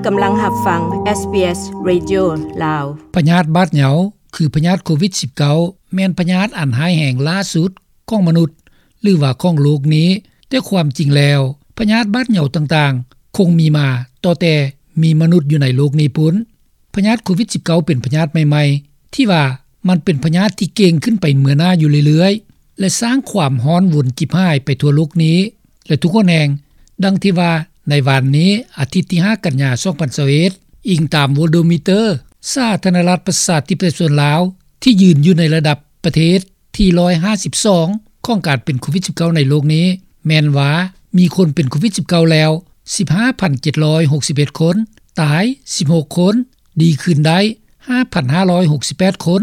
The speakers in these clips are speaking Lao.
ກຳລັງຮັບຟັງ ເອສບີເອສ ເຣດິໂອ ລາວ. ພະຍາດບາດເຍົາ ຄືພະຍາດໂຄວິດສິບເກົ້າ ແມ່ນພະຍາດອັນຮ້າຍແຮງຫຼ້າສຸດຂອງມະນຸດ ຫຼືວ່າຂອງໂລກນີ້, ແຕ່ຄວາມຈິງແລ້ວ ພະຍາດບາດເຍົາຕ່າງໆ ຄົງມີມາຕັ້ງແຕ່ມີມະນຸດຢູ່ໃນໂລກນີ້ພຸ້ນ. ພະຍາດໂຄວິດສິບເກົ້າ ເປັນພະຍາດໃໝ່ໆ ທີ່ວ່າມັນເປັນພະຍາດທີ່ເກັ່ງຂຶ້ນໄປເບື້ອໜ້າຢູ່ເລື້ອຍໆ ແລະ ສ້າງຄວາມຮ້ອນວຸນຈິບຫາຍໄປທົ່ວໂລກນີ້ ແລະ ທຸກຫົນແຫ່ງ. ດັ່ງທີ່ວ່າໃນວານນີ້ ອາທິດທີຫ້າ ກັນຍາ ສອງພັນຊາວເອັດ, ອີງຕາມໂວໂດມີເຕີ ສາທາລະນະລັດປະຊາທິປະໄຕປະຊາຊົນລາວ ທີ່ຢືນຢູ່ໃນລະດັບປະເທດທີຮ້ອຍຫ້າສິບສອງ ຂອງການເປັນໂຄວິດສິບເກົ້າໃນໂລກນີ້ ແມ່ນວ່າມີຄົນເປັນໂຄວິດສິບເກົ້າແລ້ວ ສິບຫ້າພັນເຈັດຮ້ອຍຫົກສິບເອັດຄົນ, ຕາຍສິບຫົກຄົນ, ດີຄືນໄດ້ຫ້າພັນຫ້າຮ້ອຍຫົກສິບແປດຄົນ.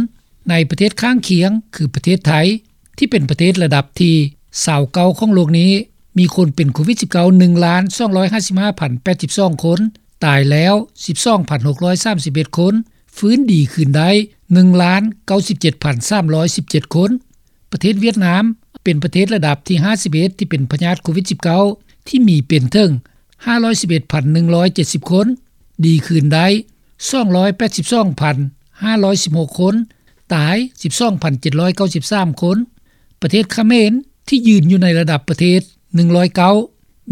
ໃນປະເທດຂ້າງຄຽງ ຄືປະເທດໄທ ທີ່ເປັນປະເທດລະດັບທີຊາວເກົ້າຂອງໂລກນີ້ ມີຄົນເປັນໂຄວິດສິບເກົ້າ ໜຶ່ງລ້ານສອງຮ້ອຍຫ້າສິບຫ້າພັນແປດສິບສອງຄົນ, ຕາຍແລ້ວສິບສອງພັນຫົກຮ້ອຍສາມສິບເອັດຄົນ, ຟື້ນດີຄືນໄດ້ໜຶ່ງລ້ານເກົ້າສິບເຈັດພັນສາມຮ້ອຍສິບເຈັດຄົນ. ປະເທດຫວຽດນາມ ເປັນປະເທດລະດັບທີຫ້າສິບເອັດ ທີ່ເປັນພະຍາດໂຄວິດສິບເກົ້າ ທີ່ມີເປັນເຖິງຫ້າຮ້ອຍສິບເອັດພັນໜຶ່ງຮ້ອຍເຈັດສິບຄົນ, ດີຄືນໄດ້ສອງຮ້ອຍແປດສິບສອງພັນຫ້າຮ້ອຍສິບຫົກຄົນ, ຕາຍສິບສອງພັນເຈັດຮ້ອຍເກົ້າສິບສາມຄົນ. ປະເທດຂະເໝນ ທີ່ຢືນຢູ່ໃນລະດັບປະເທດໜຶ່ງຮ້ອຍເກົ້າ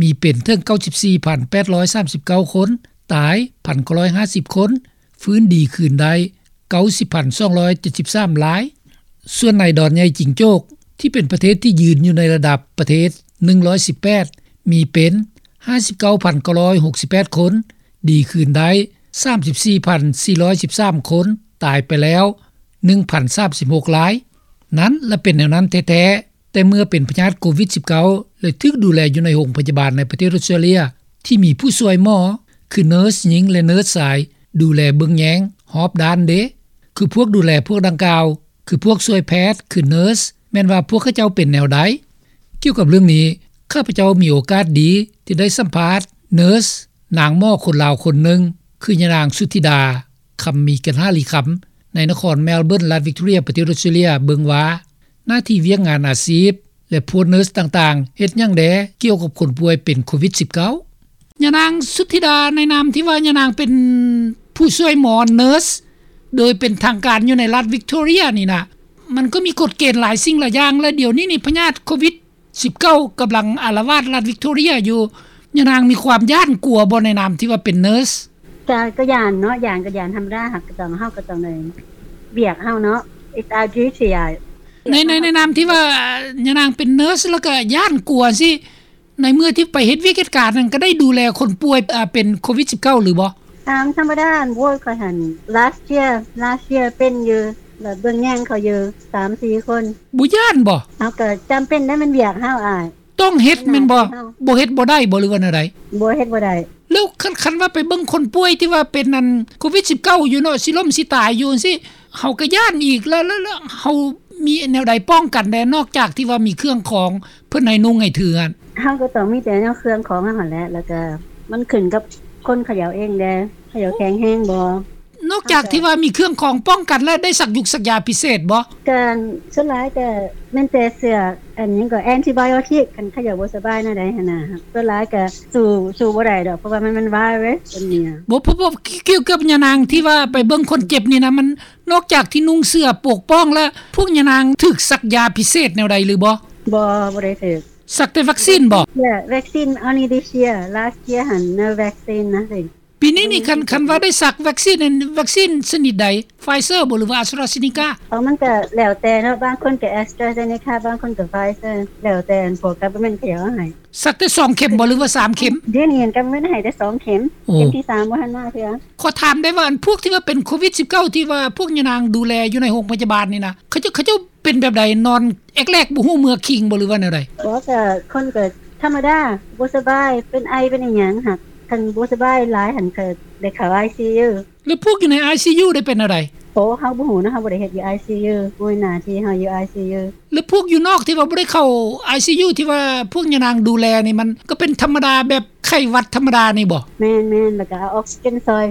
ມີເປັນເຖິງເກົ້າສິບສີ່ພັນແປດຮ້ອຍສາມສິບເກົ້າຄົນ, ຕາຍພັນເກົ້າຮ້ອຍຫ້າສິບຄົນ, ຟື້ນດີຄືນໄດ້ເກົ້າສິບພັນສອງຮ້ອຍເຈັດສິບສາມລາຍ. ສ່ວນໃນດອນໃຫຍ່ຈິງໂຈກ ທີ່ເປັນປະເທດທີ່ຢືນຢູ່ໃນລະດັບປະເທດໜຶ່ງຮ້ອຍສິບແປດ ມີເປັນຫ້າສິບເກົ້າພັນເກົ້າຮ້ອຍຫົກສິບແປດຄົນ, ດີຄືນໄດ້ສາມສິບສີ່ພັນສີ່ຮ້ອຍສິບສາມຄົນ, ຕາຍໄປແລ້ວໜຶ່ງພັນສາມສິບຫົກລາຍ. ນັ້ນລະເປັນແນວນັ້ນແທ້ໆ ແຕ່ເມື່ອເປັນພະຍາດໂຄວິດສິບເກົ້າ ແລະ ຖືກດູແລຢູ່ໃນໂຮງພະຍາບານໃນປະເທດອົດສະຕຣາເລຍ ທີ່ມີຜູ້ຊ່ວຍໝໍ ຄືເນີສຍິງ ແລະ ເນີສຊາຍ ດູແລເບິ່ງແຍງຮອບດ້ານເດ. ຄືພວກດູແລພວກດັ່ງກ່າວ ຄືພວກຊ່ວຍແພດ ຄືເນີສ ແມ່ນວ່າພວກເຂົາເຈົ້າເປັນແນວໃດ? ກ່ຽວກັບເລື່ອງນີ້ ຂ້າພະເຈົ້າມີໂອກາດດີທີ່ໄດ້ສຳພາດເນີສ ນາງໝໍຄົນລາວຄົນໜຶ່ງ ຄືຍານາງ ສຸທິດາ ຄຳມີກັນຫາລີຄຳ ໃນນະຄອນແມລເບີນ ລັດວິກຕໍເຣັຍ ປະເທດອົດສະຕຣາເລຍ ເບິ່ງວ່າ ໜ້າທີ່ວຽກງານອາຊີບ ແລະ ພວກເນີສຕ່າງໆ ເຮັດຫຍັງແດ່ກ່ຽວກັບຄົນປ່ວຍເປັນໂຄວິດສິບເກົ້າ? ຍານາງ ສຸທິດາ ໃນນາມທີ່ວ່າຍານາງເປັນຜູ້ຊ່ວຍໝໍ ເນີສ ໂດຍເປັນທາງການຢູ່ໃນລັດວິກຕໍເຣັຍນີ້ນະ, ມັນກໍມີກົດເກນຫຼາຍສິ່ງຫຼາຍຢ່າງ ແລະ ດຽວນີ້ນີ້ພະຍາດໂຄວິດສິບເກົ້າກຳລັງອາລະວາດລັດວິກຕໍເຣັຍຢູ່. ຍານາງມີຄວາມຢ້ານກົວບໍ່ໃນນາມທີ່ວ່າເປັນເນີສ? ກະ ກະຢ້ານເນາະ, ຢ້ານກະຢ້ານທຳມະດາ, ເຮົາກະຕ້ອງ ເຮົາກະຕ້ອງໄດ້ວຽກເຮົາເນາະ, it's our duty. ໃນ ໃນ ໃນນາມທີ່ວ່າຍານາງເປັນເນີສ ແລ້ວກະຢ້ານກົວຊີ້, ໃນເມື່ອທີ່ໄປເຮັດວຽກເຮັດການນັ້ນ ກະໄດ້ດູແລຄົນປ່ວຍ ເປັນໂຄວິດສິບເກົ້າ ຫຼືບໍ່? ຕາມທຳມະດາ ໂອ້ຍ ຂ້ອຍຫັ້ນ last year last year ເປັນຢູ່ ແບບເບິ່ງແຍງເຂົາຢູ່ສາມສີ່ຄົນ. ບໍ່ຢ້ານບໍ່? ເຮົາກະຈຳເປັນໄດ໋ ແມ່ນວຽກເຮົາອ້າຍ. ຕ້ອງເຮັດແມ່ນບໍ່? ບໍ່ເຮັດບໍ່ໄດ້ບໍ່ ຫຼືວ່າແນວໃດ? ບໍ່ເຮັດບໍ່ໄດ້. ແລ້ວຄັນ ຄັນວ່າໄປເບິ່ງຄົນປ່ວຍທີ່ວ່າເປັນອັນໂຄວິດສິບເກົ້າຢູ່ເນາະ ຊິລົ້ມຊິຕາຍຢູ່ຈັ່ງຊີ້ ເຮົາກໍຢ້ານອີກ. ແລ້ວ ແລ້ວ ແລ້ວເຮົາມີແນວໃດປ້ອງກັນແດ່ ນອກຈາກທີ່ວ່າມີເຄື່ອງຂອງເພິ່ນໃຫ້ນຸ່ງໃຫ້ຖືຫັ້ນ? ເຮົາກໍຕ້ອງມີແຕ່ແນວເຄື່ອງຂອງເຮົາຫັ້ນແຫຼະ ແລ້ວກໍມັນຂຶ້ນກັບຄົນເຂົາເຈົ້າເອງແດ່ ເຂົາເຈົ້າແຂງແຮງບໍ່. ນອກຈາກທີ່ວ່າມີເຄື່ອງຂອງປ້ອງກັນແລ້ວ ໄດ້ສັກຢຸກສັກຢາພິເສດບໍ່? ກະສ່ວນຫຼາຍກະແມ່ນແຕ່ເຊື້ອ ອັນຫຍັງກໍ antibiotic ຄັນເຂົາເຈົ້າບໍ່ສະບາຍແນວໃດຫັ້ນນະ. ສ່ວນຫຼາຍກະສູ້ ສູ້ບໍ່ໄດ້ດອກ ເພາະວ່າມັນ ມັນ virus ຕົວນີ້ນະ. ບໍ່ ເພາະ ເພາະ ກ່ຽວກັບຍານາງທີ່ວ່າໄປເບິ່ງຄົນເຈັບນີ້ນະ ມັນ ນອກຈາກທີ່ນຸ່ງເສື້ອປົກປ້ອງແລ້ວ ພວກຍານາງຖືກສັກຢາພິເສດແນວໃດຫຼືບໍ່? ບໍ່ ບໍ່ໄດ້ຖືກ. ສັກແຕ່ວັກຊີນບໍ່? Yeah, vaccine only this year. Last year ຫັ້ນ no vaccine, nothing. ປີນີ້ນີ້ ຄັນ ຄັນວ່າໄດ້ສັກວັກຊີນ ວັກຊີນຊະນິດໃດ? Pfizer ບໍ່ ຫຼືວ່າ AstraZeneca? ເອີ ມັນກະແລ້ວແຕ່ເນາະ, ບາງຄົນກະ AstraZeneca ບາງຄົນກະ Pfizer ແລ້ວແຕ່ພວກ government ເຂົາເຈົ້າເອົາໃຫ້. ສັກແຕ່ສອງເຂັມບໍ່ ຫຼືວ່າສາມເຂັມ? ດຽວນີ້ government ໃຫ້ແຕ່ສອງເຂັມ. ໂອ້ ເຂັມທີສາມບໍ່ທັນມາເທື່ອ. ຂໍຖາມໄດ້ວ່າ ອັນພວກທີ່ວ່າເປັນໂຄວິດສິບເກົ້າ ທີ່ວ່າພວກຍານາງດູແລຢູ່ໃນໂຮງພະຍາບານນີ້ນະ ເຂົາເຈົ້າ ເຂົາເຈົ້າ ເປັນແບບໃດ? ນອນແອກແລກບໍ່ຮູ້ເມືອຄິງບໍ່ ຫຼືວ່າແນວໃດ? ບໍ່ ກະຄົນກະທຳມະດາ ບໍ່ສະບາຍ ເປັນໄອເປັນອີ່ຫຍັງຫັ້ນ. ຄັນບໍ່ສະບາຍຫຼາຍຫັ້ນກະໄດ້ເຂົ້າ ICU. ແລ້ວພວກຢູ່ໃນ ICU ໄດ້ເປັນແນວໃດ? ໂອ້ ເຮົາບໍ່ຮູ້ນະ, ເຮົາບໍ່ໄດ້ເຮັດຢູ່ ICU, ບໍ່ແມ່ນໜ້າທີ່ເຮົາຢູ່ ICU. ແລ້ວພວກຢູ່ນອກທີ່ວ່າບໍ່ໄດ້ເຂົ້າ ICU ທີ່ວ່າພວກຍານາງດູແລນີ້ ມັນກໍເປັນທຳມະດາ ແບບໄຂ້ຫວັດທຳມະດານີ້ບໍ່? ແມ່ນໆ ແລ້ວກະເອົາອອກຊີເຈນຊ່ອຍ.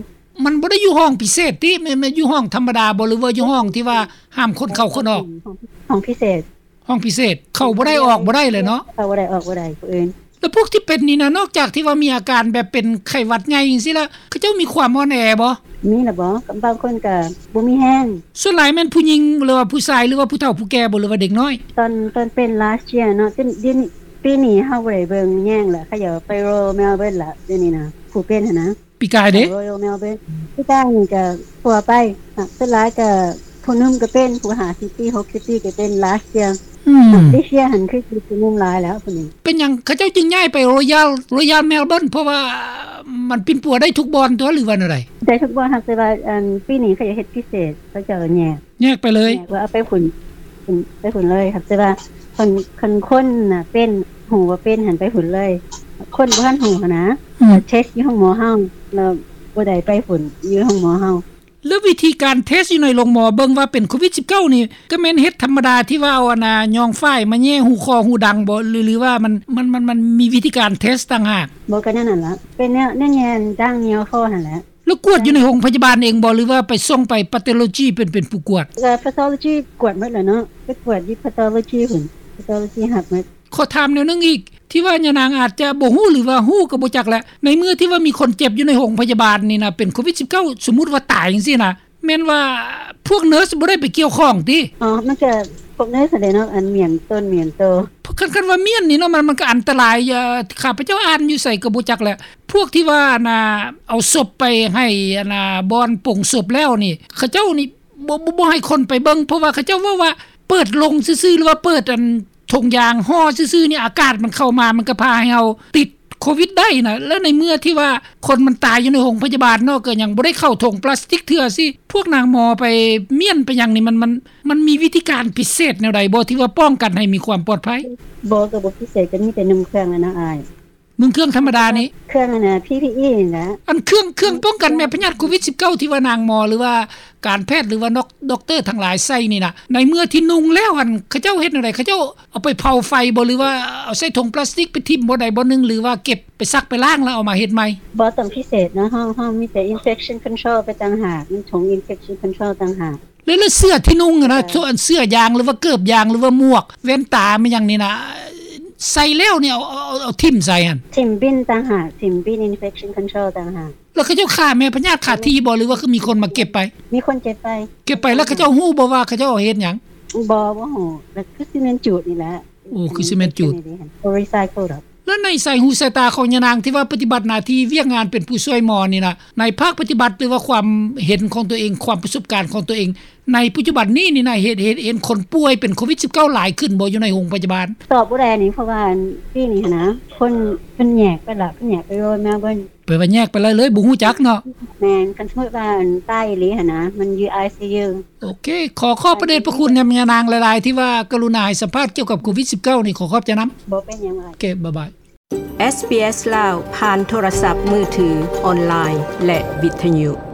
ມັນບໍ່ໄດ້ຢູ່ຫ້ອງພິເສດຕິ? ແມ່ນ ແມ່ນຢູ່ຫ້ອງທຳມະດາບໍ່ ຫຼືວ່າຢູ່ຫ້ອງທີ່ວ່າຫ້າມຄົນເຂົ້າຄົນອອກ? ຫ້ອງ ຫ້ອງພິເສດ. ຫ້ອງພິເສດ ເຂົ້າບໍ່ໄດ້ອອກບໍ່ໄດ້ເລີຍເນາະ? ເຂົ້າບໍ່ໄດ້ອອກບໍ່ໄດ້ຜູ້ອື່ນ. ແລ້ວພວກທີ່ເປັນນີ້ນະ ນອກຈາກທີ່ວ່າມີອາການແບບເປັນໄຂ້ຫວັດໃຫຍ່ຈັ່ງຊີ້ລະ ເຂົາເຈົ້າມີຄວາມອ່ອນແອບໍ່? ມີລະບໍ? ບາງຄົນກໍບໍ່ມີແຮງ. ສ່ວນຫຼາຍແມ່ນຜູ້ຍິງ ຫຼືວ່າຜູ້ຊາຍ ຫຼືວ່າຜູ້ເຖົ້າຜູ້ແກ່ບໍ ຫຼືວ່າເດັກນ້ອຍ? ຕອນ ຕອນເປັນ last year ເນາະ ດຽວນີ້ ປີນີ້ເຮົາບໍ່ໄດ້ເບິ່ງແຍງລະ ເຂົາເຈົ້າໄປ Royal Melbourne ລະ ດຽວນີ້ນະ ຜູ້ເປັນຫັ້ນນະ. ປີກາຍເດ້? Royal Melbourne ປີກາຍນີ້ກໍທົ່ວໄປ ສ່ວນຫຼາຍກໍຜູ້ໜຸ່ມກໍເປັນ ຜູ້ຫ້າສິບປີ ຫົກສິບປີກໍເປັນ last year. ອືມ this year ຫັ້ນຄືຊິຜູ້ໜຸ່ມຫຼາຍແລ້ວຜູ້ນີ້. ເປັນຫຍັງເຂົາເຈົ້າຈຶ່ງຍ້າຍໄປ Royal Royal Melbourne? ເພາະວ່າມັນປິ່ນປົວໄດ້ທຸກບ່ອນຕົວະ ຫຼືວ່າແນວໃດ? ໄດ້ທຸກບ່ອນ ຫາກແຕ່ວ່າ ອັນ ປີນີ້ເຂົາເຮັດພິເສດ ເຂົາເຈົ້າແຍກ ແຍກໄປເລີຍ ແຍກວ່າເອົາໄປພຸ້ນ ໄປພຸ້ນເລີຍ ຫາກແຕ່ວ່າຄັນ ຄັນຄົນນະເປັນ ຮູ້ວ່າເປັນຫັ້ນໄປພຸ້ນເລີຍ ຄົນບໍ່ທັນຮູ້ຫັ້ນນະ ອືມ ເທັສຢູ່ໂຮງໝໍເຮົາ ແລ້ວບໍ່ໄດ້ໄປພຸ້ນ ຢູ່ໂຮງໝໍເຮົາ. ແລ້ວວິທີການເທັສຢູ່ໃນໂຮງໝໍເບິ່ງວ່າເປັນໂຄວິດສິບເກົ້ານີ້ ກໍແມ່ນເຮັດທຳມະດາທີ່ວ່າເອົາອັນນ່າ ຍ້ອງຝ້າຍມາແຍ່ຮູຄໍຮູດັງບໍ ຫຼື ຫຼືວ່າມັນ ມັນ ມັນ ມັນມີວິທີການເທັສຕ່າງຫາກ? ບໍ່ ກໍແນວນັ້ນລະ ເປັນແນວ ແນວແຍ່ດັ່ງຍໍຄໍຫັ້ນແຫຼະ. ແລ້ວກວດຢູ່ໃນໂຮງພະຍາບານເອງບໍ ຫຼືວ່າໄປສົ່ງໄປ pathology ເປັນ ເປັນຜູ້ກວດ? ກໍ pathology ກວດໝົດແຫຼະເນາະ ໄປກວດຢູ່ pathology ພຸ້ນ pathology ຮັບໝົດ. ຂໍຖາມແນວໜຶ່ງອີກ ທີ່ວ່າຍານາງອາດຈະບໍ່ຮູ້ ຫຼືວ່າຮູ້ກໍບໍ່ຈັກແຫຼະ ໃນເມື່ອທີ່ວ່າມີຄົນເຈັບຢູ່ໃນໂຮງພະຍາບານນີ້ນະ ເປັນໂຄວິດສິບເກົ້າ ສົມມຸດວ່າຕາຍຈັ່ງຊີ້ນະ ແມ່ນວ່າພວກເນີສບໍ່ໄດ້ໄປກ່ຽວຂ້ອງຕິ? ອໍ ມັນກະພວກເນີສຫັ້ນແຫຼະເນາະ ອັນມ້ຽນຕົນມ້ຽນໂຕ. ຄັນ ຄັນວ່າມ້ຽນນີ້ເນາະ ມັນ ມັນກະອັນຕະລາຍ ຂ້າພະເຈົ້າອ່ານຢູ່ໃສກໍບໍ່ຈັກແຫຼະ ພວກທີ່ວ່າອັນນ່າ ເອົາສົບໄປໃຫ້ອັນນ່າ ບ່ອນປົງສົບແລ້ວນີ້ ເຂົາເຈົ້ານີ້ ບໍ່ ບໍ່ ບໍ່ໃຫ້ຄົນໄປເບິ່ງ ເພາະວ່າເຂົາເຈົ້າເວົ້າວ່າ ເປີດໂລງຊື່ໆ ຫຼືວ່າເປີດອັນຖົງຢາງຫໍ່ຊື່ໆ ນີ້ ອາກາດມັນເຂົ້າມາ ມັນກໍພາໃຫ້ເຮົາຕິດໂຄວິດໄດ້ນະ. ແລ້ວໃນເມື່ອທີ່ວ່າຄົນມັນຕາຍຢູ່ໃນໂຮງພະຍາບານເນາະ ກໍຍັງບໍ່ໄດ້ເຂົ້າຖົງປລາສຕິກເທື່ອຊີ້ ພວກນາງໝໍໄປມ້ຽນໄປຫຍັງນີ້ ມັນ ມັນ ມັນມີວິທີການພິເສດແນວໃດບໍ່ ທີ່ວ່າປ້ອງກັນໃຫ້ມີຄວາມປອດໄພ? ບໍ່ ກໍບໍ່ພິເສດ ກໍມີແຕ່ນຸ່ງເຄື່ອງຫັ້ນນະອ້າຍ. ນຸ່ງເຄື່ອງທຳມະດານີ້ ເຄື່ອງອັນນ່າ ພີພີອີ ນີ້ນະ ອັນເຄື່ອງ ເຄື່ອງປ້ອງກັນແມ່ພະຍາດໂຄວິດສິບເກົ້າ ທີ່ວ່ານາງໝໍ ຫຼືວ່າການແພດ ຫຼືວ່ານັກ ດັອກເຕີທັງຫຼາຍໃສ່ນີ້ນະ ໃນເມື່ອທີ່ນຸ່ງແລ້ວຫັ້ນ ເຂົາເຈົ້າເຮັດແນວໃດ? ເຂົາເຈົ້າເອົາໄປເຜົາໄຟບໍ ຫຼືວ່າເອົາໃສ່ຖົງປລາສຕິກໄປຖິ້ມບ່ອນໃດບ່ອນໜຶ່ງ ຫຼືວ່າເກັບໄປຊັກໄປລ້າງ ແລ້ວເອົາມາເຮັດໃໝ່? ບໍ່ຕ້ອງພິເສດເນາະ ເຮົາ ເຮົາມີແຕ່ infection control ໄປຕ່າງຫາກ ມີຖົງ infection control ຕ່າງຫາກ. ແລ້ວ ແລ້ວເສື້ອທີ່ນຸ່ງຫັ້ນນະ ເອີ ສ່ວນເສື້ອຢາງ ຫຼືວ່າເກີບຢາງ ຫຼືວ່າໝວກ ແວ່ນຕາ ແມ່ນຫຍັງນີ້ນະ ໃສ່ແລ້ວນີ້ ເອົາ ເອົາ ເອົາ ເອົາຖິ້ມໃສ່ຫັ້ນ? ຖິ້ມບິນຕ່າງຫາກ ຖິ້ມບິນ infection control ຕ່າງຫາກ. ແລ້ວເຂົາເຈົ້າຂ້າແມ່ພະຍາດຄາທີ່ບໍ່ ຫຼືວ່າຄືມີຄົນມາເກັບໄປ? ມີຄົນເກັບໄປ. ເກັບໄປ ແລ້ວເຂົາເຈົ້າຮູ້ບໍ່ວ່າເຂົາເຈົ້າເຮັດຫຍັງ? ບໍ່ ບໍ່ຮູ້ ແລ້ວຄືຊິແມ່ນຈູດນີ້ແຫຼະ. ໂອ້ ຄືຊິແມ່ນຈູດ recycle ດອກ. ແລ້ວໃນສາຍຫູສາຍຕາຂອງຍານາງທີ່ວ່າປະຕິບັດໜ້າທີ່ວຽກງານເປັນຜູ້ຊ່ວຍໝໍນີ້ນະ ໃນພາກປະຕິບັດ ຫຼືວ່າຄວາມເຫັນຂອງຕົວເອງ ຄວາມປະສົບການຂອງຕົວເອງ ໃນປັດຈຸບັນນີ້ນີ້ນະ ເຫັນ ເຫັນ ເຫັນຄົນປ່ວຍເປັນໂຄວິດສິບເກົ້າຫຼາຍຂຶ້ນບໍ່ ຢູ່ໃນໂຮງພະຍາບານ? ຕອບບໍ່ໄດ້ນີ້ ເພາະວ່າປີນີ້ຫັ້ນນະ ເພິ່ນ ເພິ່ນແຍກໄປລະ ເພິ່ນແຍກໄປ Royal Melbourne. ແປວ່າແຍກໄປເລີຍ ເລີຍບໍ່ຮູ້ຈັກເນາະ. ແມ່ນ ຄັນສົມມຸດວ່າຕາຍອີ່ຫຼີຫັ້ນນະ ມັນຢູ່ ໄອຊີຢູ. ໂອເຄ ຂໍຂອບພະເດດພະຄຸນນຳຍານາງຫຼາຍໆ ທີ່ວ່າກະລຸນາໃຫ້ສຳພາດກ່ຽວກັບໂຄວິດສິບເກົ້ານີ້ ຂໍຂອບໃຈນຳ. ບໍ່ເປັນຫຍັງ. ໂອເຄ ບາຍບາຍ. ເອສບີເອສ ລາວ ຜ່ານໂທລະສັບມືຖື, ອອນລາຍ ແລະ ວິທະຍຸ.